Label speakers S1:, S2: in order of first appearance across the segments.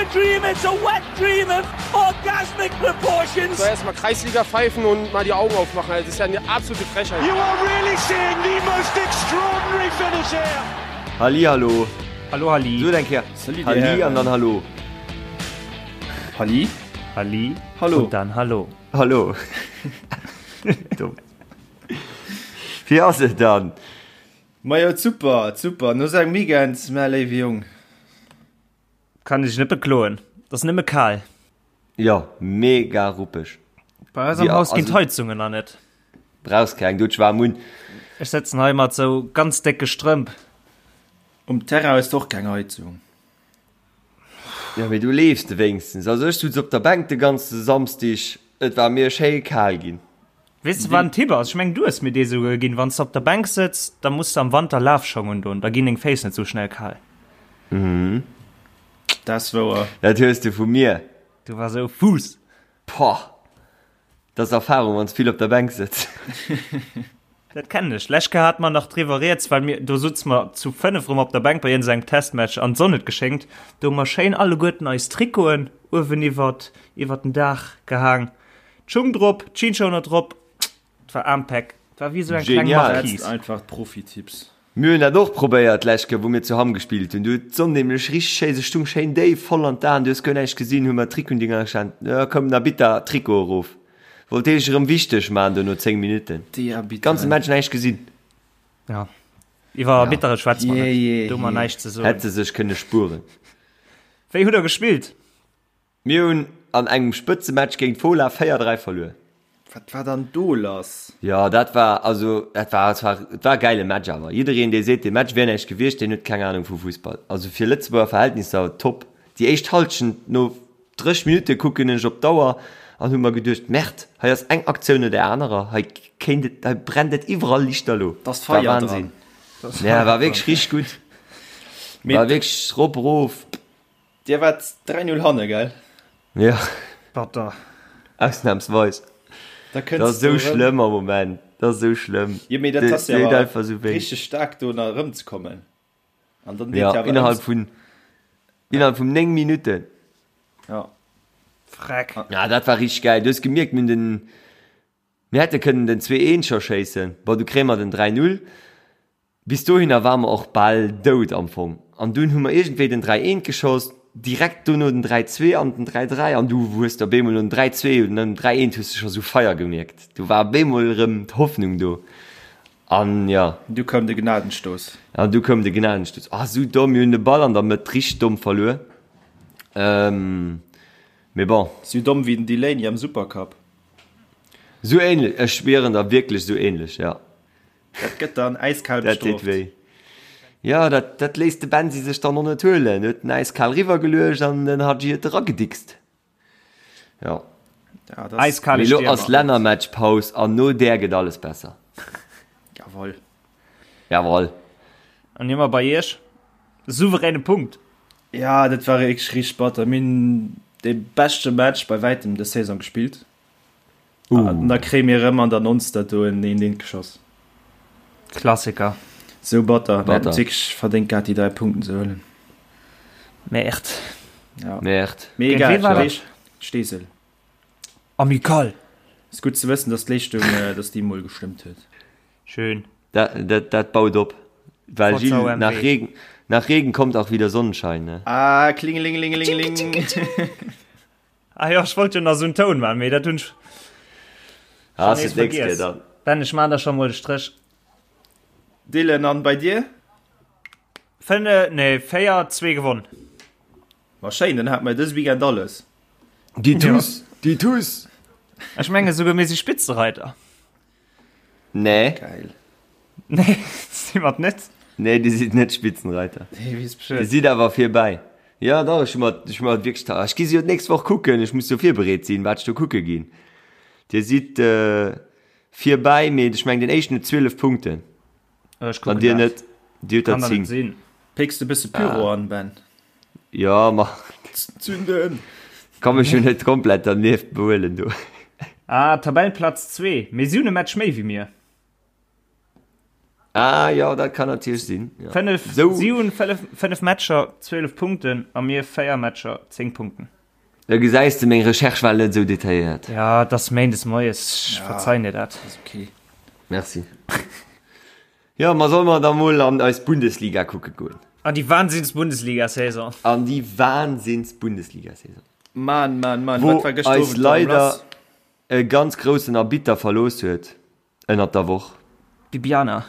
S1: a dream, it's a wet dream of orgasmic proportions.
S2: So erstmal Kreisliga pfeifen und mal die Augen aufmachen. Das ist ja eine absolute Frechheit.
S1: You are really seeing the most extraordinary finish here.
S3: Halli hallo.
S4: Hallo Halli.
S3: So eng Kéier
S5: Salut,
S3: Halli
S5: Dir
S3: an dann Hallo.
S5: Halli.
S4: Halli.
S3: Hallo.
S4: Und dann Hallo.
S3: Hallo. Dumm. Wéi ass et dann?
S5: Majo super, super. No sou engem Weekend, mä léiwe Jong.
S4: Kann ech net bekloen. Et ass nëmme kal.
S3: Jo, mega ruppeg.
S4: Bei eis am Haus ginn d'Heizungen nach net.
S3: Brauchs keng, du hues waarm un.
S4: Ech sëtzen hei mat sou ganz décke Strëmp.
S5: Um Terrain hues de och keng Heizung.
S3: Jo, mee du leefs de wéinstens. Also ech sutz op der Bänk de ganze Samsdig, et war mir schéi kal ginn.
S4: Weess de wat en Tipp ass? Ech mengen du hues mir dee souguer ginn. Wann s de op der Bänk sëtz, da muss de am Wanter Lafschong undon, da ginn deng Féiss net sou schnell kal.
S5: Dat ass wouer.
S3: Dat hues de vu mir.
S4: Du war sou Fuuss.
S3: Poah, dat ass Erfahrung, wann s vill op der Bänk sëtz.
S4: Dat kennen ech. Lescht Kéier hate mer nach driwwer rieds, well mir, do sutze mer zu 5 erëm op der Bänk bei iergendengem Testmatch an d'Sonn huet geschéngt. Do hu mer schéin alleguerten eis Trikoten uewen iwwert, iwwert den Daach gehaang. D'Schung drop, d'Jeansschoner drop, et war Ampec. Et war wéi esou eng kleng
S3: Genial.
S5: Dat sinn
S4: Marquise.
S5: einfach d'Profitipps.
S3: Mir hunn dat och probéiert d'lescht Kéier, wou mir zu Hamm gespillt hunn. Du huet d'Sonn nämlech richteg schéi, se stung schéin déif, voll an d'Aen, du hues guer näischt gesinn, hu mer d'Trikotdinger geschaant, jo komm, na bitter, Trikot erof. Wollt dee sech erëm wichteg man do no 10 Minutten.
S5: Déi Arbitteren.
S3: Ganze Match näischt gesinn.
S4: Ja, iwwer Arbittere schwätze mer
S5: Jee,
S4: net,
S5: jee,
S4: do hu mer
S5: jee.
S4: näischt ze soen.
S3: Hätt se sech kënne spueren.
S4: Wéi hutt der gespillt?
S3: Mir hunn an engem Spëtzematch géint Fola 4, 3 verluer.
S5: Wat war dann do lass?
S3: Jo, dat war, also dat war zwar, et war e gäile Match, awer jiddereen dee seet dee Match wier näischt gewiescht, deen huet keng Ahnung vu Fussball. Also fir Lëtzebuerger Verhältnisser top. Déi éischt Halschent, no 30 Minutte kucken ech op d'Auer an hu mer geduecht, Merde, hei ass eng Aktioun no där anerer, hei kéint et, hei brennt et iwwerall lichterlo.
S5: Da ass
S3: War
S5: Feier dran.
S3: Wahnsinn. Ja, war wierklech richteg gutt.
S5: Mee
S3: War wierklech rop erof.
S5: Dir waart 3, 0 hanne, gell?
S3: Ja.
S4: Batter.
S3: Ausnahmsweis.
S5: Da
S3: Dat
S5: kënns
S3: ass esou
S5: du erëm.
S3: schlëmm am Moment. Dat ass esou schlëmm.
S5: Jo, mee dat ass jo
S3: Deet
S5: awer
S3: einfach esou wéi.
S5: richteg staark do nach erëmzekommen. An dann deet
S3: Ja,
S5: jo awer
S3: innerhalb
S5: ëms.
S3: vun, innerhalb vun 9 Minutten.
S5: Ja.
S4: Freck.
S3: Ja, dat war richteg gäil. Du hues gemierkt, mir hunn den, mir hätte kënnen den 2, 1 scho schéissen. Bon, du kréie mer den 3, 0. Bis dohinner ware mer och bal dout am Fong. An dunn hu mer iergendwéi den 3, 1 geschoss, direkt dono den 3, 2 an den 3, 3. An du hues de op eemol nom 3, 2 oder nom 3, 1 hues de scho sou Feier gemierkt. Do war op eemol erëm d'Hoffnung do. An jo.
S5: Du koum de Gnadenstoss.
S3: An du koum de Gnadenstoss. Ah, sou domm, mir hunn de Ball an der Mëtt richteg domm verluer. Mee bon.
S5: Sou domm wéi den Delaney am Supercup.
S3: Sou ähnlech, ech schwieren der, wierklech sou ähnlech, jo.
S5: Dat gëtt dann äiskal
S3: Dat deet
S5: bestrooft.
S3: wéi. Jo, dat, dat léisst de Bensi sech dann och net huelen. Huet en äiskal riwwergeluecht an den Hadji huet eragedickst. Jo.
S5: Ja, dat ass.
S4: Eiskale
S3: Mee lo
S4: Stiermer.
S3: ass Lännermatchpaus an no där gëtt alles besser.
S5: Jawoll.
S3: Jawoll.
S4: An hie mer bei iech. Souveräne Punkt.
S5: Ja, dat war wierklech richteg batter. Mir hunn dee beschte Match bei wäitem dës Saison gespillt. Uh. An da kréie mir erëm an der Nonster do en een eent geschoss.
S4: Klassiker.
S5: Sou batter. Mir hätten
S3: Batter.
S5: et wierklech verdéngt gehat, déi 3 Punkten ze huelen.
S4: Merde.
S5: Ja.
S3: Merde.
S5: Mee
S4: Géint
S5: egal,
S4: wee war dat?
S5: weess, Steesel.
S4: Amical.
S5: Ass gutt ze wëssen, dass d'Leeschtung, äh, dass déi mol gestëmmt huet.
S4: Schön.
S3: Dat, dat, dat baut op. Well
S4: Forza
S3: Gilles,
S4: OMW.
S3: nach Regen, nach Regen kommt auch wieder Sonnenschein, ne?
S5: Ah, klingelingelingelingeling.
S4: Ah jo, ech wollt jo nach esou en Toun man, mee dat hunn ech
S3: Ah,
S4: schon
S3: ass
S4: nees
S3: et nächst Kéier
S4: vergiess.
S3: dann.
S4: Ben, ech man der schon mol de Stréch.
S5: Dylan, an bei dir?
S4: 5, nee, 4, 2 gewonn.
S5: Ma schéin, dann hat mer dës Weekend alles.
S3: Déi Tuss, déi Tuss!
S4: Ech menge souguer mir si Spitzereiter.
S3: Nee.
S5: Geil.
S4: Nee, si mer net.
S3: Nee, Dir sidd net Spitzenreiter.
S5: Nee, weess
S3: Dir
S5: Bescheed.
S3: sidd awer virbäi. Jo, dach, ech hu mer, ech hu mer wierklech, ta, ech gi se jo d'nächst Woch kucken, ech muss jo virbereet sinn, wat ech do kucke ginn. Dir sidd virbäi, mee ech mengen, den éischten huet 12 Punkten.
S4: Ech
S3: An
S4: kucken
S3: Dir
S4: dat.
S3: net, Dir hutt der
S4: Kann der net
S3: 10.
S4: sinn.
S5: Pécks de bësse Pyro an, Ben?
S3: Jo, ma
S5: Zünden!
S3: kann mech jo net komplett dernieft behuelen do.
S4: Ah, Tabellenplatz 2, mee si hunn e Match méi wéi mir.
S3: Ah jo, dat kann natierlech sinn. Ja.
S4: 5,
S3: Sou.
S4: Si hunn 5 Matcher, 12 Punkten a mir 4 Matcher, 10 Punkten.
S3: Da gesäis de, meng Recherche war net esou detailléiert.
S4: Ja, et ass méindes moies, ech verzeien dir dat.
S5: Ass ok.
S3: Merci. Jo, ma solle mer da mol an eis Bundesliga kucke goen?
S4: An déi Wahnsinns-Bundesliga-Saison.
S3: An déi Wahnsinns-Bundesliga-Saison.
S5: Mann, Mann, Mann,
S3: Wou
S5: wat war gëschter
S3: eis
S5: Owend erëm
S3: leider
S5: lass?
S3: e ganz groussen Arbitter verlooss huet ënnert der Woch.
S4: D'Bibiana.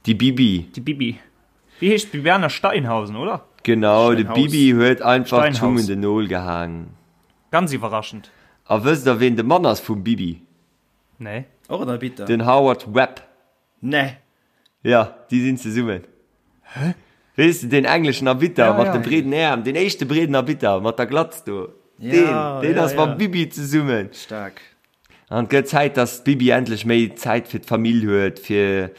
S3: Déi Bibi.
S4: Déi Bibi. Wéi heescht d'Bibiana Steinhausen, oder?
S3: Genau, de
S5: Steinhaus.
S3: Bibi huet einfach d'Schung
S4: Steinhaus.
S3: un den Nol gehaang.
S4: Ganz iwwerraschend.
S3: A wësst der, ween de Mann ass vum Bibi?
S4: Nee.
S5: Och en Arbitter?
S3: Den Howard Webb.
S5: Nee.
S3: Jo, déi sinn zesummen. Hä? Weess de, deen engleschen Arbitter
S4: Ja,
S3: mat
S4: ja.
S3: de breeden Äerm, deen éischte breeden Arbitter mat der Glatz do.
S5: Ja,
S3: Deen, deen
S5: ja,
S3: ass mam
S5: ja.
S3: Bibi zesummen.
S5: Staark.
S3: An et gëtt Zäit, dass d'Bibi endlech méi Zäit fir d'Famill huet, fir,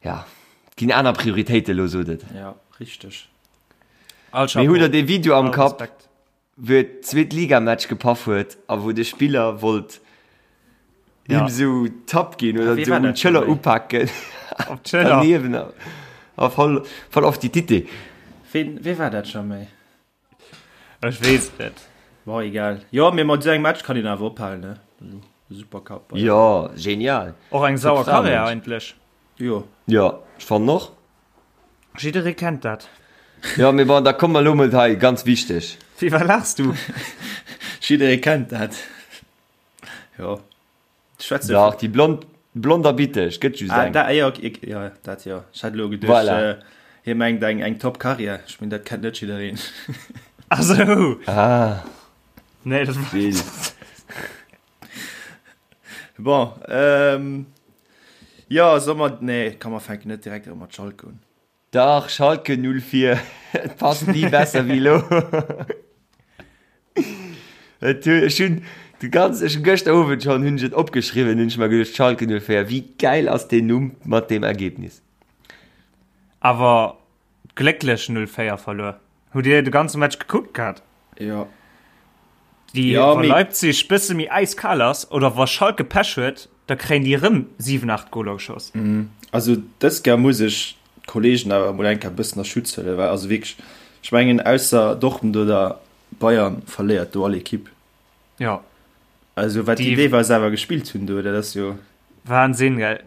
S3: ja, et ginn aner Prioritéiten elo, sot et.
S5: Ja, richteg.
S4: All
S3: Mee hutt
S4: Chapeau.
S3: der dee Video am
S4: All
S3: Kapp,
S4: Respekt.
S3: wou et Zweetligamatch gepaff huet a wou de Spiller wollt him
S4: Ja.
S3: sou Tapp ginn oder
S5: Wee
S3: sou
S5: war
S3: un
S5: dat
S3: d'Schëller
S5: schon méi?
S3: upaken
S4: Op d'Schëller.
S3: daneben a a voll voll auf die Titte.
S5: Ween, wee war dat scho méi?
S4: Ech weess et net.
S5: Bon, egal. Jo, mee mat esou engem Match kann een awer ophalen, ne? Supercup.
S3: Jo, genial.
S4: Och eng sauer
S3: Top Fra,
S4: Karriär
S3: Mensch.
S4: eigentlech.
S5: Jo.
S3: Jo, ech fannen och.
S4: Jidderee kennt dat.
S3: Jo, mee bon, da komme mer elo mol hei, ganz wichteg.
S4: Wéi, wat laachs du?
S5: Jidderee kennt dat. Jo. Schwätze
S3: Dach, déi blond, blond a bitteg, gëtt just
S5: Ah,
S3: eng.
S5: da, jo, ok, jo, dat jo. Ech hat elo geduecht,
S3: Voilà.
S5: äh, hie mengt eng, eng top Karriär. Ech meng, dat kennt net jiddereen.
S4: Ah sou.
S3: Ah,
S4: Nee, dat war.
S3: Will.
S5: Bon, ähm, jo, soll mer, nee, komm, mer fänken net direkt erëm mat Schalke un.
S3: Dach, Schalke 04, et passt ni besser wéi elo. Et hu, ech hunn de ganz, ech hunn gëschter Owend schonn hunn ech et opgeschriwwen, hunn ech mer geduecht, Schalke 04, wéi gäil ass deen Numm mat deem Ergebnis.
S4: Awer glécklech 0-4 verluer. Hutt Dir de ganze Match gekuckt gehat?
S5: Jo.
S4: Déi,
S5: Ja,
S4: wa
S5: mee-
S4: Leipzig bësse méi äiskal ass oder wa Schalke Pech huet, da kréien déi erëm 7, 8 Goler geschoss.
S5: Also dës Kéier muss ech d'Kollegen awer emol eng Kéier e bëssen a Schutz huelen, well also wierklech, ech mengen ausser Dortmund oder Bayern verléiert do all Ekipp.
S4: Ja.
S5: Also wat déi
S4: Déi-
S5: deelweis awer gespillt hunn do, dat ass jo.
S4: Wahnsinn, gell?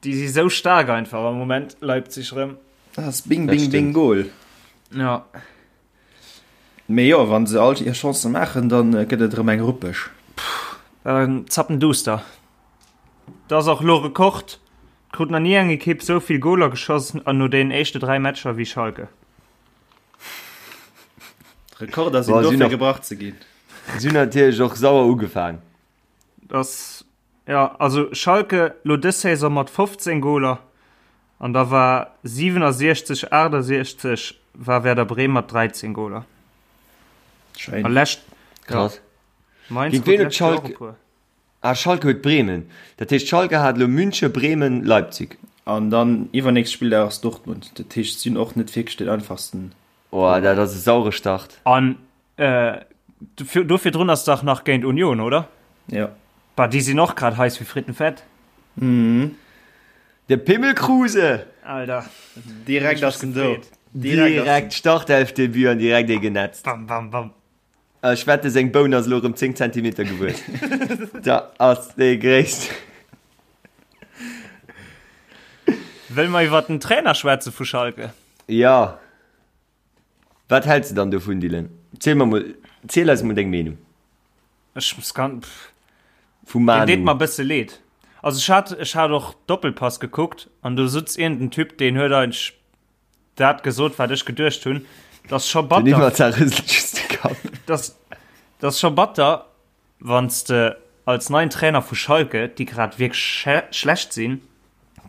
S4: Déi si sou staark einfach am Moment, Leipzig rëm.
S5: Dat ass bing,
S3: Dat
S5: bing, bing,
S3: stimmt.
S5: Goal.
S4: Ja.
S5: Mee jo, wann se all hir Chancen maachen, dann gëtt et erëm eng ruppeg.
S4: Dann zappenduster. Dat ass och lo Rekord. Et krut nach ni eng Ekipp sou vill Goler geschoss an no deenen éischte 3 Matcher wéi Schalke.
S5: Rekorder sinn
S3: Boah,
S5: dofir
S3: sinn och-
S5: gebrach ze ginn.
S3: Si hunn natierlech och sauer ugefaang.
S4: Das, ja, also Schalke lo dës Saison mat 15 Goler an da war 67, 68 war Werder Bremen mat 13 Goler.
S5: Schein.
S4: A lescht,
S3: Krass.
S4: ja, Mainz
S3: Géint
S4: krut
S3: ween huet
S4: lescht Joer och
S3: Schalke-
S4: e puer.
S3: Ah, Schalke huet Bremen. Dat heescht, Schalke hat elo München, Bremen, Leipzig.
S5: An dann iwwernächst Spilldag ass Dortmund. Dat heescht, si hunn och net wierklech den einfachsten.
S3: Oh, dat ass e saure Start.
S4: An äh, do virdrun ass dach nach géint Union, oder?
S5: Ja.
S4: Bah, déi sinn och grad heiß wie Frittenfett.
S5: Mhm.
S3: De Pimmel Kruse!
S4: Alter.
S5: Direkt ass en do.
S3: Direkt Startelfdebut an direkt ee genetzt.
S4: Bam, bam, bam.
S3: Ech wette seng Boun ass elo erëm 10 Zentimeter gewuess. Da ass dee gréisst.
S4: Wëlle mer iwwer den Trainer schwätze vu Schalke?
S3: Ja. Wat häls de dann dovun, Dylan? Ziel mer mol, ziel eis mol deng Meenung.
S4: Ech muss ganz, pff.
S3: Vum
S4: Deen deet
S3: Manu.
S4: mer e bësse leed. Also ech hat, ech hat och Doppelpass gekuckt an do sutz iergend en Typ, deen huet eigentlech dat gesot, wat ech geduecht hunn. Dat ass scho
S3: Den
S4: batter.
S3: Iwwer rëselt just de Kapp.
S4: Dat ass scho batter, Wann s de als neien Trainer vu Schalke, déi grad wierklech schlecht sinn,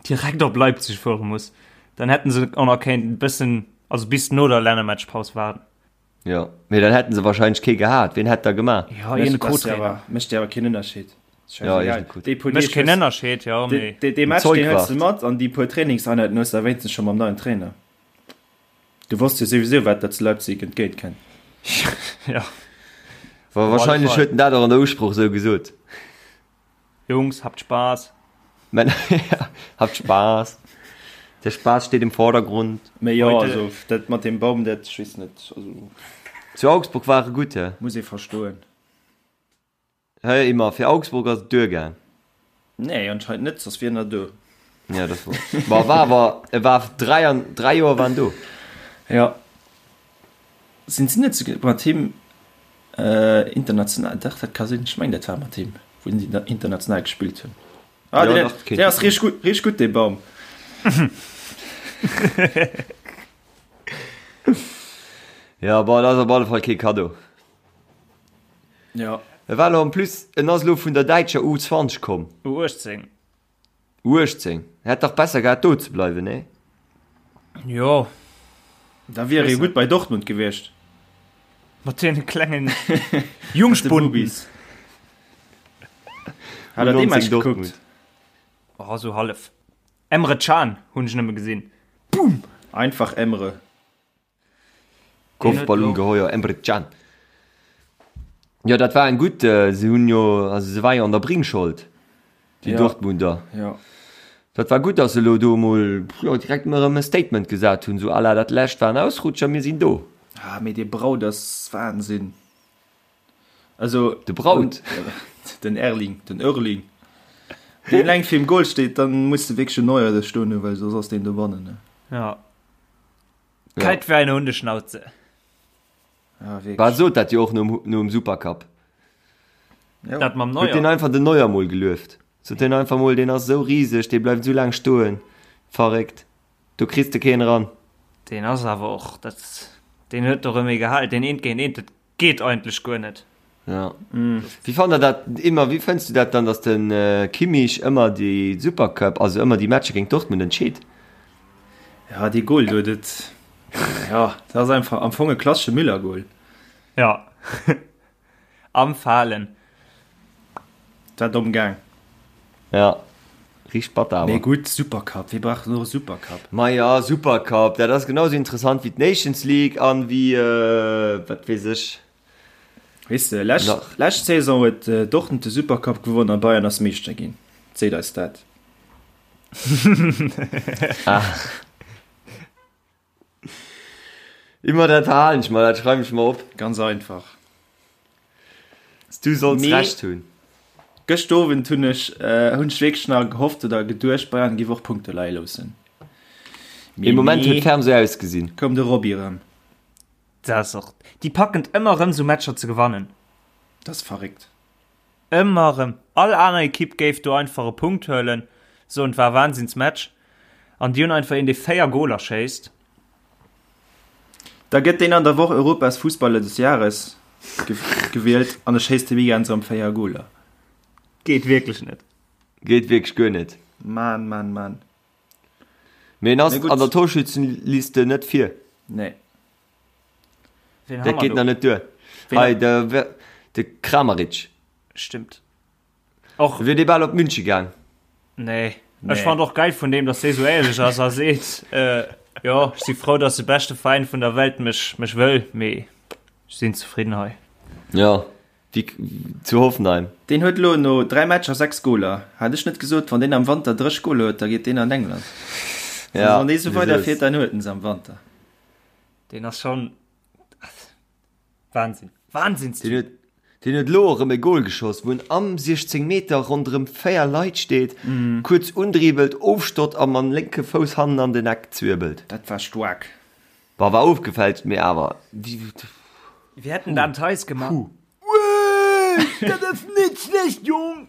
S4: direkt op Leipzig fuere muss, dann hätten se och nach kéinten e bëssen, also bis no der Lännermatchpaus waarden.
S3: Jo, mee dann hätten se wahrscheinlech kee gehat. Ween hätt da gemaach?
S4: Jo, iergend e Co-Trainer.
S5: Mécht jo awer keen Ënnerscheed.
S3: Jo, iergend e Co-Trainer.
S4: Mécht keen Ënnerscheed, jo, mee.
S5: Dee Match, deen hues de mat an déi puer Trainingseinheiten hues de wéinstens scho mam neien Trainer. Du wosst jo souwisou wat der zu Leipzig entgéint kennt.
S4: Ja.
S3: Wa wahrscheinlech huet en dat och an der Usproch sou gesot.
S4: Jungs, habt Spaß.
S3: Männer, ja, habt Spaß. Der Spaß steht im Vordergrund.
S5: Mee jo, also dat mat deem Baum, dat, ech weess net, also.
S3: Zu Augsburg war e gutt, he?
S5: Muss ee verstoen.
S3: Hë, Immer, fir Augsburg ass et duergaang.
S5: Nee, anscheinend net, soss wier en der do.
S3: Ja, dat wor. Bon, war awer, e war 3 an, 3 Joer war en do.
S5: Ja. Sinn si net souguer mat him international, dach, dat ka sinn, ech mengen dat war mat him, wou si international gespillt hunn. Ah, ja, deen, deen ass richteg gutt, richteg gutt, dee Baum.
S3: Ja, bon, dat ass op alle Fall kee Kaddo.
S5: Ja.
S3: E war lo en plus, en ass lo vun der däitscher U20 komm.
S4: U18.
S3: U18. Hätt dach besser gehat do ze bleiwen, nee?
S4: Jo.
S5: Da wier e gutt bei Dortmund gewiescht.
S4: Mat deene klengen Jungspunden.
S5: Hat der dee Match gekuckt?
S4: Oh, sou hallef. Emre Can hunn ech nëmme gesinn.
S5: Boom! Einfach Emre.
S3: Kopfballungeheuer Emre Can. Jo, dat war eng gutt. Se hunn jo, also se war jo an der Bringschold, déi
S5: ja.
S3: Dortmunder.
S5: Ja.
S3: Dat war gutt, dass se elo do emol jo, direkt mol erëm e Statement gesat hunn, sou à la dat lescht war en Ausrutscher, mir sinn do.
S5: Ah, mee dee Braut ass Wahnsinn. Also
S3: de Braut
S5: den Erling den Erling deen eleng virum Goal steet, dann muss de wierklech en Neuer do stoen hunn, well soss ass deen dobannen ne.
S4: Ja. Kalt wie eine Hundeschnauze.
S5: Ja, wierklech.
S3: War sot dat jo och nom, nom Supercup.
S5: Ja.
S4: Dat mam
S3: Huet
S4: Neuer.
S3: deen einfach den Neuer mol gelueft. Sot deen einfach mol, deen ass esou riseg, dee bleift esou laang stoen. Verréckt. Do kriss de keen eran.
S4: Deen ass awer och, dat, deen huet och ëm ee gehal, deen eent géint eent, dat Geet eigentlech guer net.
S3: Ja. Wéi fannt der dat ëmmer, wéi fënns du dat dann, datt de Kimmich ëmmer déi Supercup, also ëmmer déi Matcher géint Dortmund entscheet?
S5: Ja, dee Goal do, dat, ja, dat ass einfach am Fong e klassesche Müller-Goal.
S4: Ja. Am Falen.
S5: Dat war domm gaang.
S3: Ja, richteg batter awer.
S5: Mee gutt, Supercup, wie brauch denn och e Supercup?
S3: Maja, Supercup, dat ass genau sou interessant wéi d'Nations League an wéi, wat weess ech.
S5: Weess de, lescht,
S3: Nach.
S5: lescht Saison huet Dortmund de Supercup gewonnen a Bayern ass Meeschter ginn. Seet eis dat.
S3: Ah. Immer dat verhalen ech mer, dat schreiwen ech mer op.
S5: Ganz einfach.
S3: Du solls
S5: Mee
S3: Recht hunn.
S5: Gëscht Owend hunn ech hunn ech wierklech nach gehofft oder geduecht, Bayern géif och Punkte leie loossen.
S3: Ee Moment huet ferm sou ausgesinn.
S5: Koum de Robbie erëm.
S4: Dat ass och, déi packen et ëmmer erëm sou Matcher ze gewannen.
S5: Dat ass verréckt.
S4: Ëmmer erëm. All aner Ekipp géif do einfach e Punkt huelen, soen et war e Wahnsinnsmatch. An déi hunn einfach een dee 4 Goler schéisst.
S5: Da gëtt deen an der Woch Europas Fussballer des Jahres gewielt an e schéisst de Weekend erëm 4 Goler.
S4: Geet wierklech net.
S3: Geet wierklech guer net.
S5: Mann, Mann, Mann.
S3: Mee en ass an der Torschützenliste net vir.
S5: Nee.
S3: Dat geet nach net duer. Hei de, de Kramaric.
S4: Stimmt. Och.
S3: Wier dee bal op Münche gaang.
S4: Nee. Nee. Ech fand och geil vun deem, dass dee sou éierlech ass a seet, äh, jo, ech si frou, dass de beschte Veräin vun der Welt mech, mech wëll, mee ech sinn zefridden hei.
S3: Ja, wéi zu Hoffenheim.
S5: Deen huet elo no 3 Matcher 6 Goler. Hat ech net gesot, wann deen am Wanter 30 Goler huet, da geet deen an England.
S3: Ja,
S5: wann dee sou weiderfiert, dann huet en se am Wanter.
S4: Deen ass schon Wahnsinn. Wahnsinnstyp.
S3: Deen huet, deen huet elo erëm e Goal geschoss, wou en am 16 Meter ronderëm 4 Leit steet, kuerz undribbelt, ofstott a mam lénke Fouss hannen an den Eck zwirbelt.
S5: Dat war staark.
S3: Bon, war ofgefälscht, mee awer.
S4: Wéi hätt en dat Theis gemaach?
S3: Wuee, dat ass net schlecht, Jong!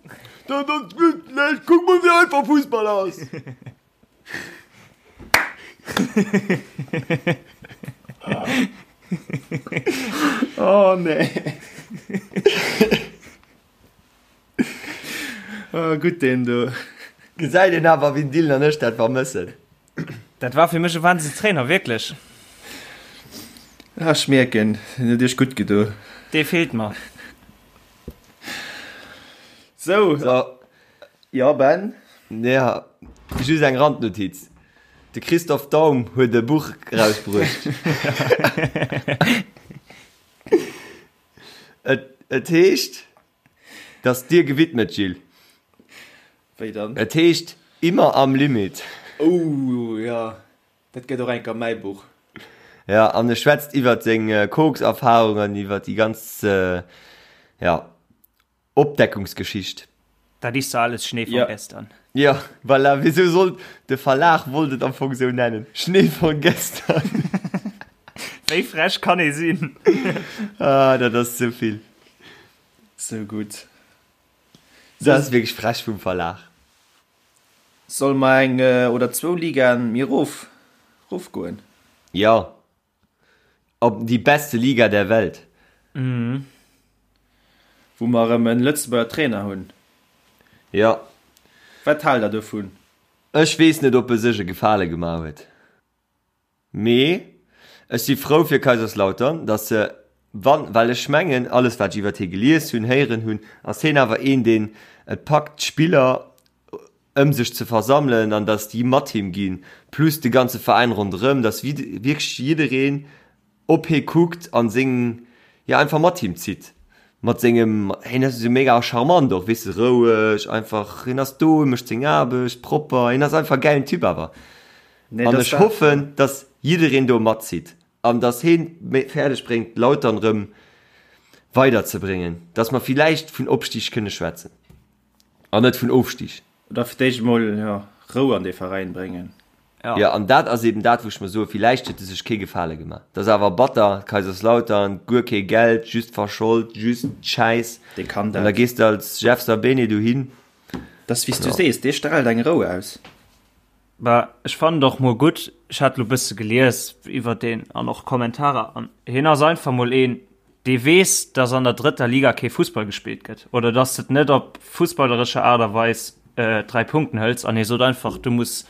S3: Dat ass net schlecht! Kuck mol, wéi einfach Fussball ass!
S5: Oh nee. Oh, gutt deen do.
S3: Gesäit een awer, wéi den Dylan an ech dat vermëssen.
S4: Dat war fir mech e Wahnsinnstrainer, wierklech.
S5: Ah, ech mierken, en huet iech gutt gedo.
S4: Dee feelt mer.
S5: Sou.
S3: So.
S5: Jo Ben?
S3: Ja, just eng Randnotiz, De Christoph Daum huet e Buch erausbruecht. Et, et heescht, dat ass dir gewidmet, Gilles.
S5: Wéi dann?
S3: Et heescht Immer am Limit.
S5: Oh jo, dat gëtt och enker mäi Buch.
S3: Ja, an e schwätzt iwwert seng Kokserfahrung an iwwert déi ganz, ja, Opdeckungsgeschicht.
S4: Dat ist so alles Schnee von gestern.
S3: Ja, voilà, wieso sollt de Verlag wollt et am Fong sou nennen, Schnee von gestern.
S4: Wéi frech kann ee sinn?
S3: Ah, dat ass ze vill.
S5: Sou gutt.
S3: Dat ass wierklech frech vum Verlag.
S5: Solle mer eng oder zwou Ligaen méi erof rofgoen?
S3: Jo, op déi beste Liga der Welt.
S5: Wou mer erëm en Lëtzebuerger Trainer hunn.
S3: Jo.
S5: Wat haalt der dovun?
S3: Ech weess net, ob e sech e Gefale gemaach huet. Mee ech si frou fir Kaiserslautern, datt se, wann, well ech mengen, alles wat ech iwwert hie gelies hunn, héieren hunn, ass hien awer een, deen et packt, d'Spiller ëm sech ze versammelen an datt déi mat him ginn, plus de ganze Veräin ronderëm, datt wierklech jiddereen op hie kuckt an seng, jo einfach mat him zitt, mat sengem, hien ass esou mega charmant och, weess de, roueg einfach, hien ass do, hie mécht seng Aarbecht propper, hien ass einfach e gäilen Typ awer. An ech hoffen, dass jiddereen do matzitt an dass hien fäerdeg bréngt Lautern rëm weider ze bréngen, dass mer villäicht vun Opstig kënne schwätzen an net vun Ofstig.
S5: Oder fir d'éischt emol, jo, Rou an dee Veräin bréngen.
S3: Jo, an dat ass eben dat, wou ech mer soen, villäicht huet e sech kee Gefale gemaach. Dat ass awer batter, Kaiserslautern, guer kee Geld, just verschold, just Schäiss.
S5: Dee kann
S3: dat. An da gees de als Jeff Sabene dohin.
S5: Dat ass wéi s du sees, dee straalt eng Rou aus.
S4: Bah, ech fannen et och mol gutt, ech hat lo bësse gelies iwwer deen an och Kommentarer an hien ass einfach mol een, dee weess, dass an der drëtter Liga kee Fussball gespillt gëtt oder dass de et net op fussballerescher Aart a Weis 3 Punkten hëls an hie sot einfach, du muss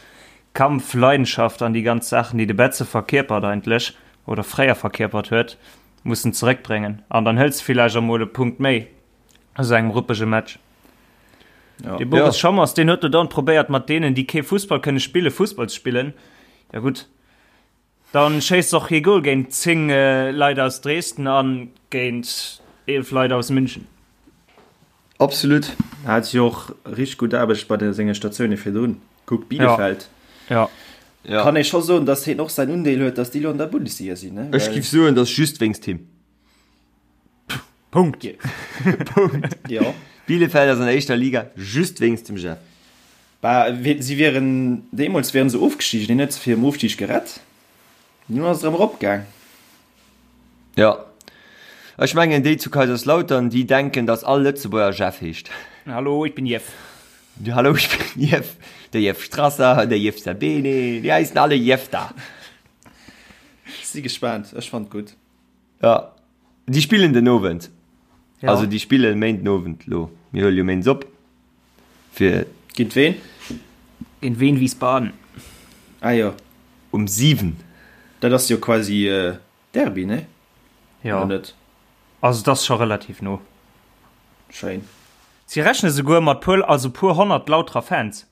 S4: Kampf, Leidenschaft an déi ganz Saachen, déi de Betze verkierpert eigentlech oder fréier verkierpert huet, mussen zeréckbréngen an dann hëls de villäicht och mol e Punkt méi. aus engem ruppege Match. Ja. De Boris ja. Schommers, den huet du dann probéiert mat denen, déi kee Fussball kënne spille Fussball ze spillen. Ja gut. Dann schéisst och hie Goal géint 10 äh, Leit aus Dresden an géint 11 Leit aus München.
S3: Absolut.
S5: Hat jo och richtig gut Aarbecht bei de senge Statioune virdrun. Kuck Bielefeld.
S4: Ja.
S5: Ja. Kann ee scho soen, datt hien och säin Undeel huet, datt déi lo an der Bundesliga sinn. Ne?
S3: Ech giff soen, datt just wéinst him.
S4: Punkt.
S3: Punkt.
S5: Jo.
S3: Bielefeld ass an der éischter Liga just wéinst dem Jeff.
S5: Bah, si wieren, deemools wieren se ofgestigen, hien huet se virum Ofstig gerett. Dunn ass et erëm eropgaang.
S3: Jo. Ech mengen déi zu Kaiserslautern, déi denken, datt all Lëtzebuerger Jeff heescht.
S4: Hallo, ich bin Jeff.
S3: Hallo, ich bin Jeff. Der Jeff Strasser, der Jeff Sabene, déi heissen alle Jeff da.
S5: Si gespaant, ech fannt gutt.
S3: Ja, déi spillen den Owend.
S4: Ja.
S3: Also déi spillen Méinden Owend lo. Mir huele jo Méindes op. Fir.
S5: Géint ween?
S4: Géint Wien Wiesbaden.
S5: Ah jo.
S3: Um 7.
S5: Dat ass jo quasi Derby, ne?
S4: Jo.
S5: Oder net?
S4: Also et ass scho relativ no.
S5: Schéin.
S4: Si rechne souguer mat puer, also puer 100 Lauterer Fans.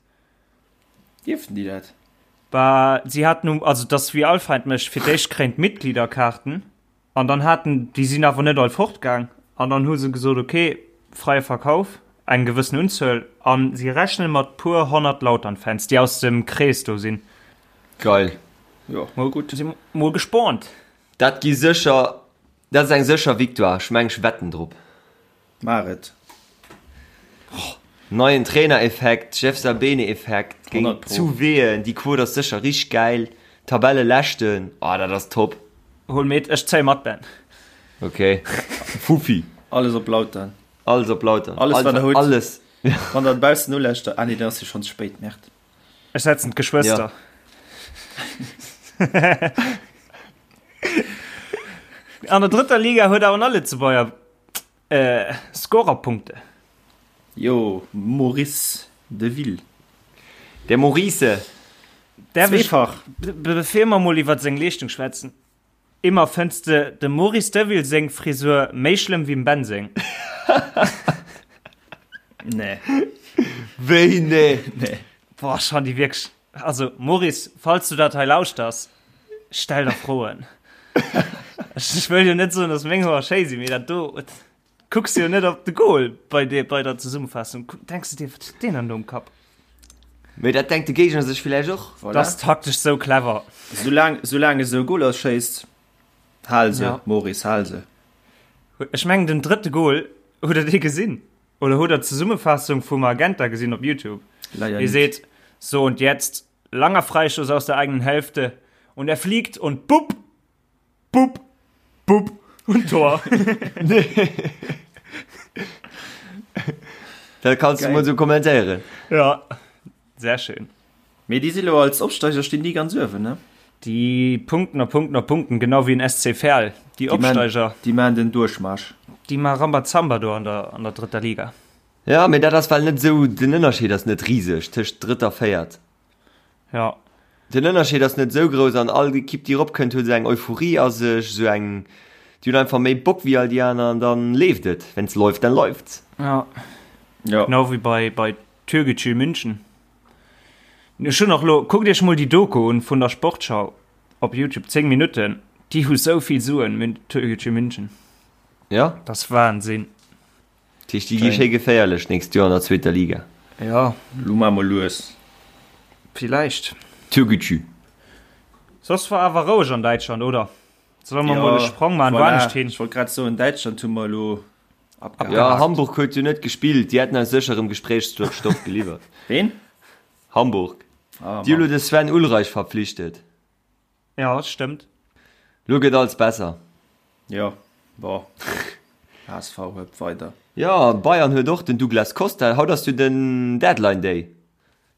S5: Dierften déi dat?
S4: Bah, si haten um, also dass wéi all Feind mécht, fir d'éischt kréien d'Mitgliederkaarten an dann haten, déi sinn awer net all fortgaang an dann hu se gesot, ok, freie Verkauf, eng gewëssen Unzuel an si rechnen mat puer 100 Lautern-Fans, déi aus dem Krees do sinn.
S3: Geil.
S5: Jo, mol gutt.
S4: Si mol gespaant.
S3: Dat gi sécher, dat ass eng sécher Victoire, ech meng ech wetten drop.
S5: Maach et.
S3: Neien Trainer-Effekt, Jeff Sabene-Effekt géint
S5: 100 pro.
S3: zu Wehen, déi Quote ass sécher richteg gäil. Tabelleleschten, oh dat ass top.
S4: Hol mit, ech zéi mat, Ben.
S3: Ok, Fuffi.
S5: Alles op Lautern.
S3: Alles op Lautern.
S5: Alles wat der hutt.
S3: Alles.
S5: Wann der baussen uläscht, ah nee, dann ass jo schonn ze spéit, Merde.
S4: Ech setzen d'Geschwëster.
S3: Ja.
S4: An der drëtter Liga huet awer nach Lëtzebuerger Scorerpunkte.
S5: Jo, Maurice Deville.
S3: Der Maurice.
S4: Zweefach. Bevir mer mol iwwer seng Leeschtung schwätzen, Immer fënns de dem Maurice Deville seng Frisur méi schlëmm wéi dem Ben seng?
S5: Nee.
S3: Wéi nee?
S5: Nee.
S4: Boah, ech han déi wierklech, also Maurice, falls du dat hei lauschters, stell der Froen. Ech wëll jo net soen, dass meng Hoer schéi sinn, mee dat do, kucks jo net op de Goal bei, de, bei der Zesummenfassung. Denks du dir, wat huet deen dann do um Kapp?
S3: Mee dat denkt de Géigner sech villäicht och.
S4: Voilà. Dat ass taktesch sou clever.
S5: Soulaang, soulaang e sou Goler schéisst, hal se, ja. Maurice, hal se.
S4: Ech mengen den drëtte Goal, hutt der dee gesinn? Oder hutt der d'Zesummefaassung vum Magenta gesinn op Youtube?
S5: Leider
S4: Hie
S5: net.
S4: seet, So und jetzt, langer Freistoß aus der eigenen Hälfte und er fliegt und bupp, bupp, bupp und Tor.
S3: Dat kanns du mol sou kommentéieren.
S4: Ja, sehr schön.
S5: Mee déi si lo als Opsteiger stinn déi ganz uewen, ne?
S4: Déi punkten a punkten a punkten, genau wéi en SC Verl. Déi Opsteiger.
S5: Déi maan den Duerchmarsch.
S4: Déi maa Rambazamba do an der, an der drëtter Liga.
S3: Ja, mee dat ass well net esou, den Ënnerscheed ass net riseg tëscht drëtt a véiert.
S4: Ja.
S3: Den Ënnerscheed ass net esou grouss an all Ekipp déi eropkënnt huet esou eng Euphorie a sech, esou eng, déi hunn einfach méi Bock wéi all déi aner an dann leeft et. Wenn's läuft, dann läuft's.
S4: Ja.
S5: Ja.
S4: Genau wéi bei, bei Türkgücü München. Ech hunn och lo, kuckt iech mol déi Doku un vun der Sportschau op Youtube, 10 Minutten, déi hu sou vill Suen, Türkgücü München.
S3: Ja.
S4: Dat ass Wahnsinn.
S3: Dat heescht, déi gi schéi geféierlech d'nächst Joer an der zweeter Liga.
S4: Ja.
S5: Lo maache mer lues.
S4: Villäicht.
S3: Türkgücü.
S4: Soss war awer roueg an Däitschland, oder? Solle mer mol e Sprong maachen,
S5: voilà.
S4: woanescht hin?
S5: Ech wollt grad soen, Däitschland hu mer elo abgehakt.
S3: Ja, Hamburg huet jo net gespillt, déi hätten eis sécher erëm Gespréichsstoff geliwwert.
S5: Ween?
S3: Hamburg.
S5: Ah,
S3: Déi hu
S5: Mann.
S3: lo de Sven Ulreich verpflichtet.
S4: Ja, stëmmt.
S3: Lo gëtt alles besser.
S5: Jo, bon. HSV huet weider.
S3: Jo, Bayern huet och den Douglas Costa. Haut ass jo den Deadline Day.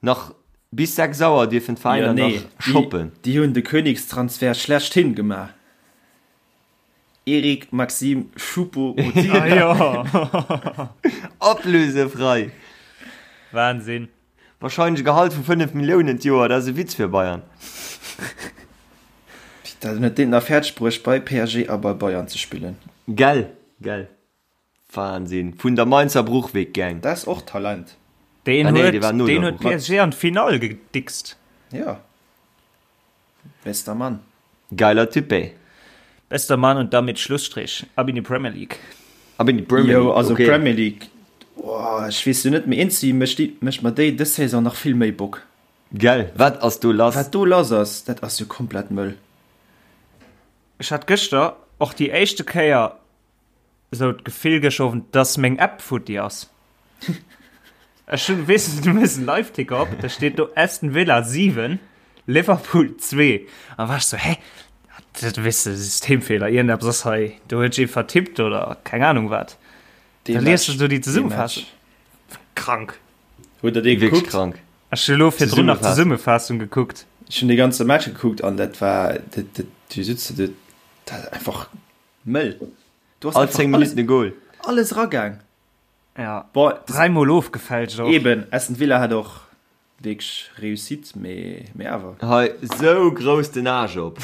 S3: Nach bis 6 Auer dierfen
S5: Jo,
S3: d'Veräiner
S5: nee,
S3: nach shoppen.
S5: déi hunn de Königstransfer schlechthin gemaach. Eric Maxim Choupo-Moting.
S4: Ah jo.
S3: Ablösefrei.
S4: Wahnsinn.
S3: Wahrscheinlech e Gehalt vu 5 Milliounen d'Joer, dat ass e Witz fir Bayern.
S5: Dat huet deen nach fäerdeg bruecht bei PSG a bei Bayern ze spillen.
S3: Gell, gell. Wahnsinn. Vun der Mainzer Bruchweg Gang.
S5: Dat ass och Talent.
S4: Deen
S3: Ah nee,
S4: huet,
S3: dee war no
S4: deen
S3: der
S4: huet
S3: Bruch.
S4: PSG an d'Finall gedickst.
S5: Jo. Bester Mann.
S3: Geiler Typ ey.
S4: Bester Mann und damit Schlussstrich. Ab in die Premier League.
S3: Ab in die Premier League,
S5: Jo, also
S3: okay.
S5: Premier League, oh, ech weess jo net, mee eenzi mécht déi, mécht mer déi dës Saison nach vill méi Bock.
S3: Gell, wat ass do lass?
S5: Wat do lass ass, dat ass jo komplett mëll.
S4: Ech hat gëschter och déi éischte Kéier esou d'Gefill gëschter Owend, dass meng App futti ass. Ech hunn, weess de, du méchs en Liveticker op, da steet do Aston Villa 7, Liverpool 2. An war ech sou, hä? Dat, weess de, Systemfehler, iergendeppes ass hei, do huet sech ee vertippt oder keng Ahnung wat.
S5: Dee
S4: Da liest
S5: Match,
S4: du do déi
S5: dee
S4: Zesummenfaassung.
S5: Match.
S4: Krank.
S5: Hutt der dee
S3: Wierklech
S5: gekuckt?
S3: krank.
S4: Ech hu lo virdrun nach
S3: Zesummenfaassung.
S4: d'Zesummenfaassung gekuckt.
S5: Ech hunn dee ganze Match gekuckt an dat war, dat, dat, du sitz do, dat einfach mëll. Du hast
S3: All
S5: einfach
S3: 10
S5: alles,
S3: Minutten e Goal.
S5: alles ragaang.
S4: Ja.
S5: Boah,
S4: Dräimol ofgefälscht och.
S5: Eben, Aston Villa hat och wierklech Réussite, mee, mee awer.
S3: Hei, sou grouss den Aarsch op.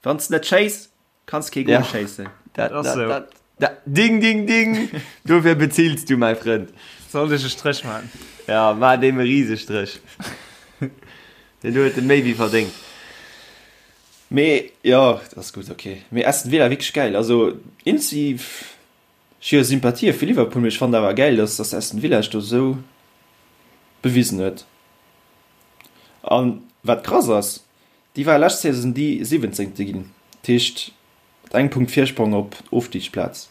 S5: Wann s net schéiss, kanns kee Goal
S3: Ja.
S5: schéissen.
S3: Dat,
S4: Ass
S3: dat,
S4: sou.
S3: dat, dat, ding, ding, ding! Dofir bezills du, mäi Frënd.
S4: Sollt ech e Stréch man?
S3: Ja, maach deem e Risestrëch. Deen huet en méi wéi verdéngt.
S5: Mee jo, dat ass gutt, ok. Mee Aston Villa wierklech gäil. Also inzi ech hu jo Sympathië fir Liverpool, mee ech fannen awer gäil, dass dass Aston Villa sech do esou bewisen huet. An wat krass ass, déi ware lescht Saison déi Siwwenzéngte ginn, dat heescht mat engem Punkt Virsprong op d'Ofstigsplaz.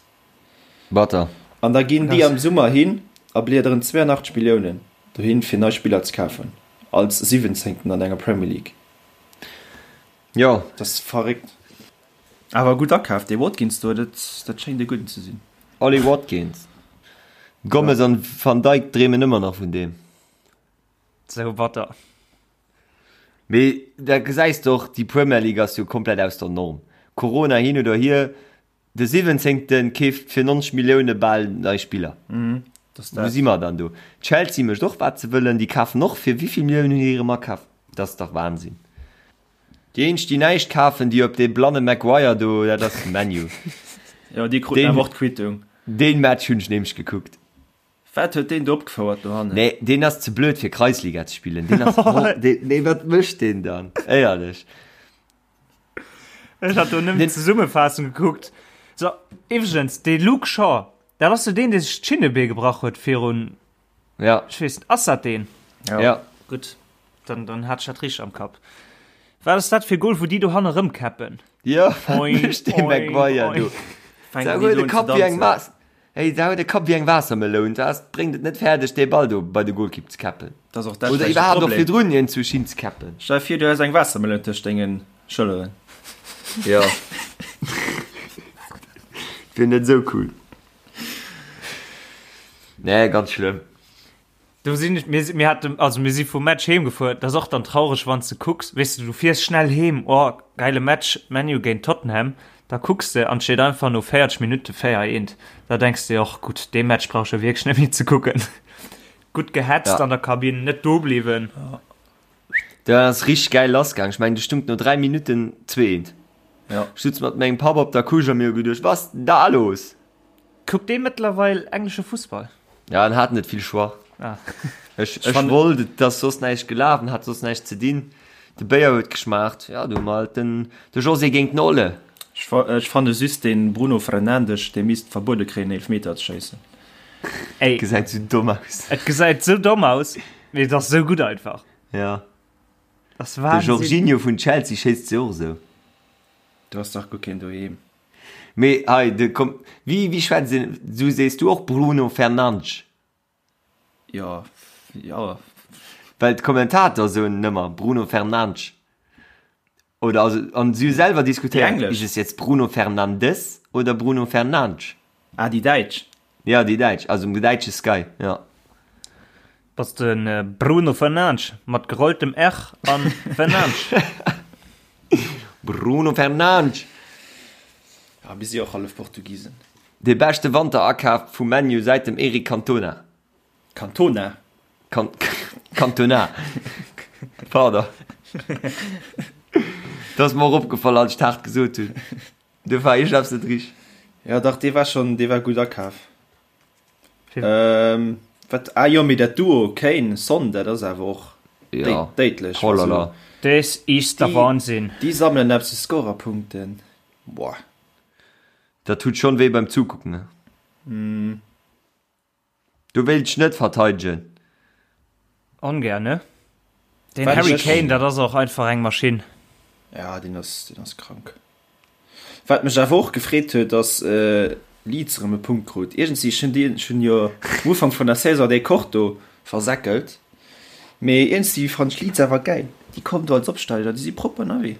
S3: Batter.
S5: An da ginn déi am Summer hin a bliederen 82 Milliounen dohin, fir nei Spiller ze kafen, als Siwwenzéngten an enger Premier League.
S3: Jo.
S5: Dat ass verréckt. Awer gutt akaf, dee Watkins do, dat dat schéngt e gudden ze sinn.
S3: Ollie Watkins. Gomez an Van Dijk dreemen ëmmer nach vun deem.
S4: Sou batter.
S3: Mee da gesäis de och, déi Premier League ass jo komplett aus der Norm. Corona hin oder hier, De Siwwenzéngte keeft fir 90 Millioune bal nei Spiller. Wou si mer dann do? Chelsea mécht och wat se wëllen, déi kafen och fir wéi vill Milliounen hunn déi erëm akaf? Dat ass dach Wahnsinn. Déi eenzeg déi näischt kafen, déi op dee blanne Maguire do, dat ass ManU.
S5: Jo, déi kruten awer och d'Quittung.
S3: Deen Match hunn ech nämlech gekuckt.
S5: Wat huet deen do opgefouert dohannen?
S3: Nee, deen ass ze blöd fir Kreisliga ze spillen. Deen ass, nee wat mécht deen dann? Éierlech.
S4: Ech hat do nëmmen d'Zesummefaassung gekuckt. So, iwwregens, dee Luke Shaw, dat ass jo deen, dee sech d'Schinnebee gebrach huet virun.
S3: Ja.
S4: Ech weess net, ass dat deen?
S3: Ja. ja.
S4: Gutt, dann, dann hat ech dat richteg am Kapp. Wat ass dat fir Goal, wou déi do hanne rëmkäppen?
S3: Ja, mécht dee Maguire do. Da huet e Kapp wéi eng Waas. Hey, da huet e Kapp wéi eng Waassermeloun. Da bréngt et net fäerdeg, dee Ball do bei de Golkipp ze käppen.
S5: Dat ass och dat
S3: Oder iwwerhaapt och virdrun hien zu Schinn ze käppen.
S5: Stell dir vir, du häss eng Waassermeloun tëscht dengen Schëlleren.
S3: Ja. Wier net esou cool. Nee, ganz schlëmm.
S4: Do sinn ech, mir, mir haten, also mir si vum Match heem gefuer, dat ass och dann traureg, wann s de kucks, weess de, du fiers schnell heem, oh, geile Match, ManU géint Tottenham, da kucks de an et steet einfach no 40 Minutte 4, 1, da denks de dir och, gutt, dee Match brauch ech jo wierklech net méi ze kucken. Gutt gehetzt
S3: Ja.
S4: an der Kabinn, net do bliwwen.
S3: Dat ass richteg gäil lassgaang. Ech mengen, do stung no 3 Minutten 2, 1.
S5: Ja.
S3: Ech sutz mat mengem Papp op der Couche a mir hu geduecht, Was ist denn da los?
S4: Kuckt dee mëttlerweil englesche Fussball?
S3: Ja, en hat net vill Choix.
S4: Ah.
S3: Ech, ech wollt, et ass soss näischt gelaf, en hat soss näischt ze dinn. De Béier huet geschmaacht. Ja, du hu mer halt den, de José géint den Olle.
S5: Ech, ech fanne just den Bruno Fernandes, dee misst verbuede kréien Eelfmeter ze schéissen.
S4: Ey.
S3: Gesäit sou domm aus.
S4: Et gesäit sou domm aus, mee et ass sou gutt einfach.
S3: Ja.
S4: Das
S3: De
S4: Wahnsinn.
S3: Jorginho vun Chelsea schéisst se och esou.
S5: Du has dach guer keen doheem.
S3: Mee hei, de komm, wéi, wéi schwätzt een, du sees du och Bruno Fernandes?
S5: Jo, jo.
S3: Well d'Kommentator soen ëmmer Bruno Fernandes. Oder also, an si hu selwer diskutéiert,
S5: Déi englesch.
S3: ist es jetzt Bruno Fernandes oder Bruno Fernandes?
S5: Ah, déi däitsch.
S3: Ja, déi däitsch, also um däitsche Sky, ja.
S4: Bass de Bruno Fernandes mat gerolltem R an Fernandes.
S3: Bruno Fernandes!
S5: Ja, mir si och hallef Portugisen.
S3: Dee beschte Wanterakaf vu ManU säit dem Eric Cantona.
S5: Cantona?
S3: Can Cantona. Pardon. Dat ass mer och opgefall, als ech d'haart gesot hunn. Do war iergend eppes net richteg.
S5: Ja, dach, dee war schonn, dee war gutt akaf. Ähm, wat, ah jo, mee dat Duo Kane, Son, dat ass awer och
S3: Ja.
S5: déidlech.
S3: Oh la la.
S4: Des is der Wahnsinn.
S5: Déi sammelen eppes u Scorerpunkten. Boah.
S3: Dat tut schonn wéi beim Zukucken, ne?
S5: Mm.
S3: Do wéilt ech net verteidegen.
S4: Ongär, ne? Den Harry Kane, dat ass och einfach eng Maschinn.
S5: Ja, deen ass, deen ass krank. Wat mech awer och gefreet huet, ass Leeds erëm e Punkt krut. Iergendwéi, ech hunn déi, ech hunn jo um Ufank vun der Saison dee Koch do versäckelt, mee iergendwéi fannen ech Leeds awer gäil. Déi kommen do als Opsteiger, déi si propper ënnerwee.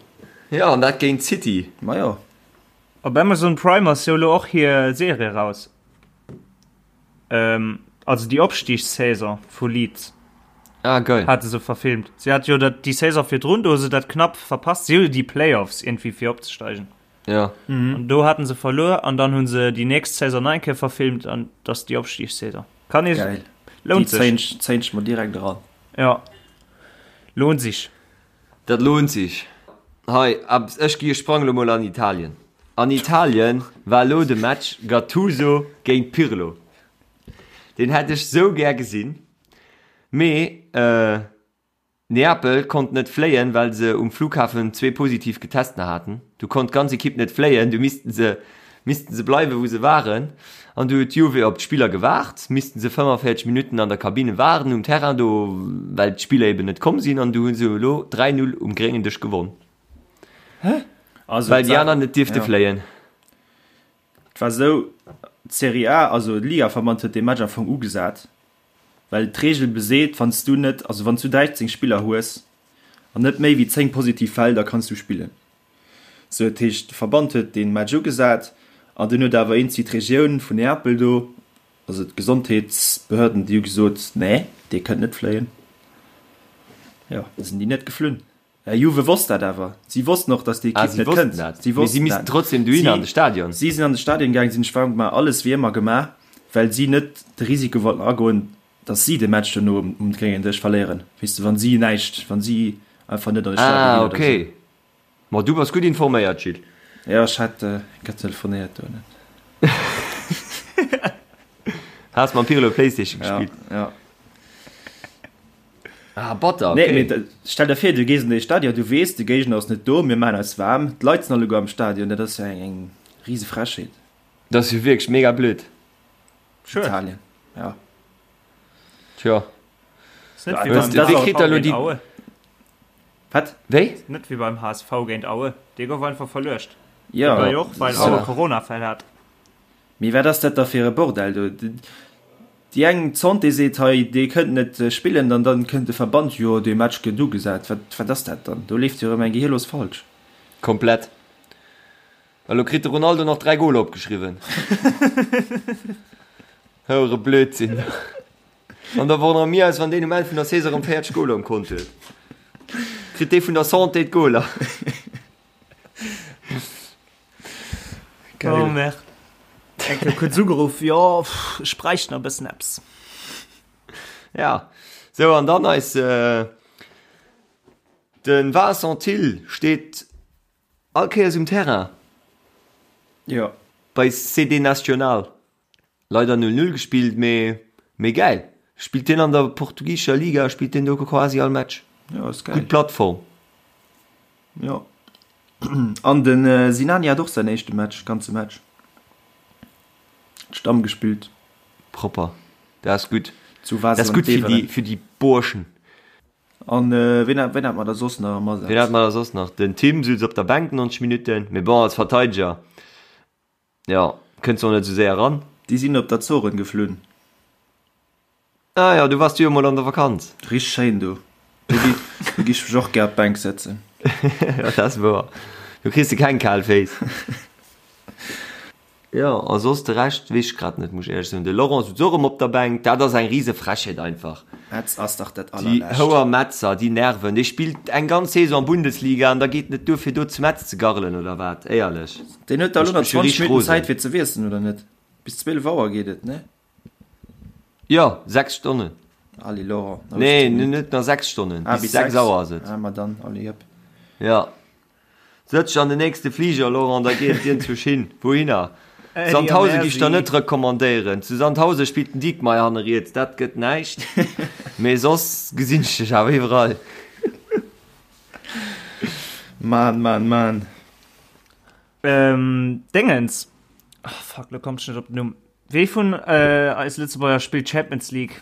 S3: Jo, an dat géint City.
S5: Majo.
S4: Op Amazon Prime ass jo elo och hir Serie raus. Ähm, also déi Opstigssaison vu Leeds.
S3: Ah, geil.
S4: Hate se verfilmt. Si hat jo dat, déi Saison virdrun, do hu se dat knapp verpasst. Si hu jo déi Playoffs irgendwie fir opzesteigen.
S3: Ja.
S4: Mhm. An do haten se verluer an dann hu se déi nächst Saison nach eng Kéier verfilmt an dat ass déi Opstigssaison. Kann ee.
S5: Geil.
S4: Lount
S5: Déi
S4: sech.
S5: zéien ech mer direkt eran.
S4: Ja. Lohnt sich.
S3: Dat lohnt sich. Hei, ech gi, ech sprang lo mol an Italien. An Italien war lo de Match Gattuso géint Pirlo. Deen hätt ech sou gär gesinn, mee Neapel konnt net fléien, well se um Flughafen zwee positiv Getesten haten. Du konnt d'ganz Ekipp net fléien, du missten se missten se bleiwen, wou se waren. An du huet d'Juve op d'Spiller gewaart, missten se 45 Minutten an der Kabine waarden um Terrain do, well d'Spiller eben net komm sinn. An du hu se elo 3, 0 um gréngen Dësch gewonn,
S5: Also,
S3: well déi aner net dierfte
S5: ja.
S3: fléien.
S5: Et war esou, d'Serie A, also de Ligaverband huet dee Match am Fong ugesat, well d'Reegel beseet, wann s du net, also wann s du 13 Spiller hues an net méi wéi 10 positiv Fäll, da kanns du spillen. Sou, dat heescht, de Verband huet dee Match ugesat an dunn huet awer eenzi d'Regioun vun Neapel do, also d'Gesondheetsbehörden, déi hu gesot, nee, dee kënnt net fléien. Jo, da sinn déi net geflunn. Juve wosst dat awer. Si wossten och, datt déi
S3: Ah,
S5: Ekipp
S3: si
S5: net
S3: wossten
S5: kënnt.
S3: dat.
S5: Si
S3: Mee si
S5: wossten
S3: missten
S5: dat.
S3: trotzdem dohinner an de Stadion.
S5: Si sinn an de Stadion gaangen, si hunn sech waarm gemaach, alles wéi ëmmer gemaach, well si net de Risiko wollten agoen, datt si de Match dono um gréngen Dësch verléieren, weess de, wa si näischt, wa si einfach net an de Stadion
S3: Ah,
S5: ginn oder sou.
S3: okay. Ma du bass gutt informéiert, Gilles.
S5: Jo, ech hat grad telefonéiert do.
S3: Has mam Pirlo Playstation gespillt?
S5: Ja, ja.
S3: Ah, batter, okay.
S5: Nee, mee stell der vir, du gees an dee Stadion, du weess, de Géigner ass net do, mir maachen eis waarm, d'Leit sinn alleguer am Stadion, dat ass jo eng, eng rise Frechheet.
S3: Dat ass jo wierklech mega blöd.
S4: Schued.
S5: Italien, ja.
S3: Tja. Wéi kritt der elo déi.
S5: Wat?
S3: Wéi?
S4: Net wéi beim HSV géint Aue. Dee gouf einfach verluecht.
S5: Jo.
S4: Dee war jo och, well Aue Coronafäll hat.
S5: Mee wat ass dat da fir e Bordell do? Déi eng, d'Santé seet hei, dee kënnt net spillen, an dann kënnt de Verband, jo dee Match gëtt ugesat. Wat, wat ass dat dann? Do leeft jo erëm eng Gehirlos falsch.
S3: Komplett. Elo kritt de Ronaldo nach 3 Goler opgeschriwwen. Houere Blödsinn. An da wonnere mir eis, wann deen um Enn vun der Saison erëm 40 Goler um Kont huet. Kritt dee vun der Santé d'Goler.
S4: Geil. Oh merde. Enke kuerz ugeruff, jo, ech bräicht nach e bëssen eppes.
S3: Ja, sou an dann eis äh, den Vincent Thill steet all Kéiers um Terrain.
S5: Jo.
S3: Bei CD Nacional. Leider 0-0 gespillt, mee mee gäil. Spillt deen an der portugisescher Liga, spillt deen do quasi all Match.
S5: Jo, ass geil.
S3: Gutt Plattform.
S5: Jo. An den Sinani hat och säin éischte Match, ganze Match. Stamm gespillt.
S3: Propper. Dat ass gutt.
S5: Zu
S3: Dat ass
S5: Basel an
S3: gutt fir déi
S5: Beveren.
S3: fir déi Burschen.
S5: An ween hat ween hat mer da soss nach am
S3: Ween hat
S5: Asaz?
S3: mer da soss nach? Den Tim sutz op der Bänk 90 Minutten, mee bon, als Verteideger. Jo, kënns och net esou séier ran.
S5: Déi sinn op d'Azoren geflunn.
S3: Ah jo, do wars du jo mol an der Vakanz.
S5: Richteg schéin do. Do gi do gi ech mech och gär op d'Bänk sëtzen.
S3: Jo, dat ass wouer. Do kriss de keng kal Féiss. Jo, a soss de Rescht weess ech grad net, muss ech éierlech soen. De Laurent sutz och erëm op der Bänk. Dat ass eng rise Frechheet einfach.
S5: Metz ass dach dat
S3: Déi
S5: allerlescht.
S3: houer Metzer, déi nerven. Dee spillt eng ganz Saison Bundesliga an da geet en net duer fir do zu Metz ze garrelen oder wat? Éierlech.
S5: Deen huet da elo
S3: Mécht
S5: nach
S3: mech jo
S5: 20
S3: richteg
S5: Minutten
S3: rosen.
S5: Zäit fir ze wiesselen, oder net? Bis 12 Auer geet et, ne?
S3: Jo, 6 Stonnen.
S5: Allez Laurent, nach
S3: Nee,
S5: 18 Minutten.
S3: net nach 6 Stonnen,
S5: Ah,
S3: bis
S5: bis
S3: 6
S5: 6?
S3: Auer ass et.
S5: Ah, ma dann, allez hëpp.
S3: Ja. Sëtz dech an den nächste Fliger, Laurent, da geet et iergendwousch hin. Wouhinner? Sandhausen gi ech der net recommandéieren. Zu Sandhausen spillt den Diekmeyer hanne riets, dat gëtt näischt. Mee soss gesinn ech dech awer iwwerall.
S5: Mann, Mann, Mann.
S4: Ähm, Dingens. Oh, fuck, lo komm ech net op den Numm. Wee vun eis Lëtzebuerger spillt Champions League?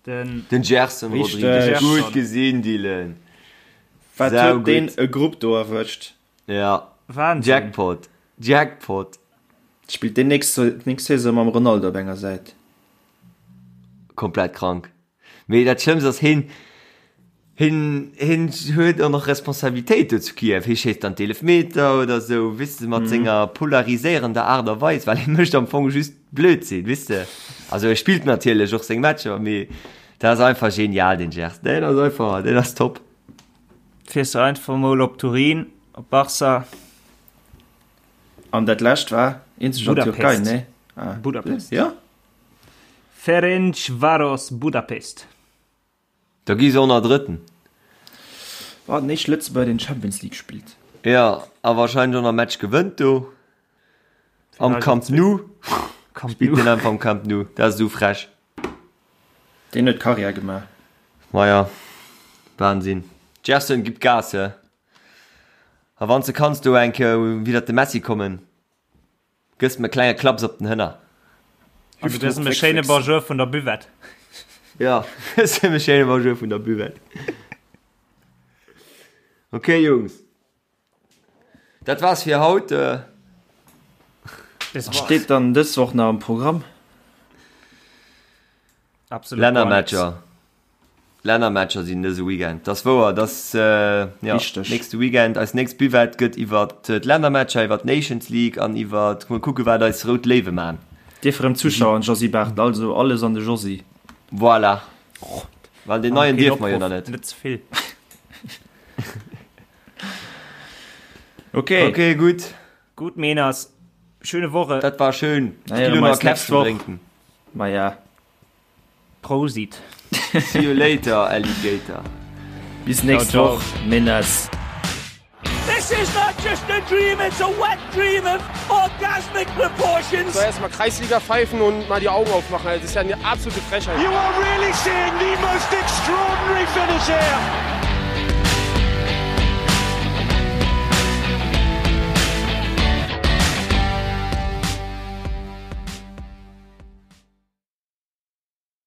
S3: Den, den Gerson Rodrigues. Gutt gesinn, Dylan.
S5: Wat huet deen e Grupp do erwëscht?
S3: Ja.
S4: Wahnsinn.
S3: Jackpot. Jackpot.
S5: Spillt deen nächst, nächst Saison mam Ronaldo op enger Säit.
S3: Komplett krank. Mee dat Schlëmmst ass, hien, hien, hien huet och nach Responsabilitéit do zu Kiew. Hie schéisst dann d'Eelefmeter oder esou, weess de, mat senger polariséierender Aart a Weis, well hie mécht am Fong just Blödsinn, weess de. Also e spillt natierlech och seng Matcher, mee dat ass einfach genial, deen Gerson. Deen ass einfach, deen ass top.
S4: Fiers du einfach mol op Turin, op Barca.
S5: An dat lescht war eenzeg an Türkei, ne?
S4: Ah. Budapest.
S5: Ja?
S4: Ferencvaros Budapest.
S3: Da gi se och nach Drëtten.
S5: War den éischte Lëtzebuerger deen Champions League spillt.
S3: Jo, a wahrscheinlech och nach Match gewënnt do. Am Camp Nou. Spillt deen einfach am Camp Nou. Dat ass esou frech.
S5: Deen huet Karriär gemaach.
S3: Maja, Wahnsinn. Gerson, gib Gas, he. A wann s de kanns do eng Kéier widder de Messi kommen. Gëss em e klenge Klaps op den Hënner.
S4: Also gëss em e schéine Bonjour vun der Buvette.
S3: Ja, gëss em e schéine Bonjour vun der Buvette. Ok Jungs, dat war's fir haut.
S5: Was steet dann dës Woch nach am Programm?
S4: Absolut gar nix.
S3: Lännermatcher. Lännermatcher sinn dëse Weekend. Dat ass wouer, dass jo
S5: Richteg.
S3: nächste Weekend eis nächst Buvette gëtt iwwer d'Lännermatcher, iwwer d'Nations League an iwwer mol kucke wat eis rout Léiwe man.
S5: Dierf erëm Zuschauer an Josy Barthel, also alles an de Josy.
S3: Voilà. Well deen neien
S4: Keen
S3: dierf mer jo
S4: Opruff,
S3: nach net.
S4: Net ze vill.
S5: Ok.
S3: Ok, gutt.
S4: Gutt Meeners, schöne Woche.
S3: Dat war schön.
S5: Na
S3: Ech
S5: ja,
S3: gi lo
S5: mer
S3: nach
S5: eis nächst
S3: Käffchen
S5: Woch.
S3: drénken.
S5: Maja.
S4: Prosit.
S3: See you later, Alligator.
S5: Bis nächst
S4: Ciao, ciao.
S5: Woch, Menas.
S1: This is not just a dream, it's a wet dream of orgasmic proportions.
S2: So erstmal Kreisliga pfeifen und mal die Augen aufmachen. Das ist ja eine absolute Frechheit.
S1: You are really seeing the most extraordinary finish here.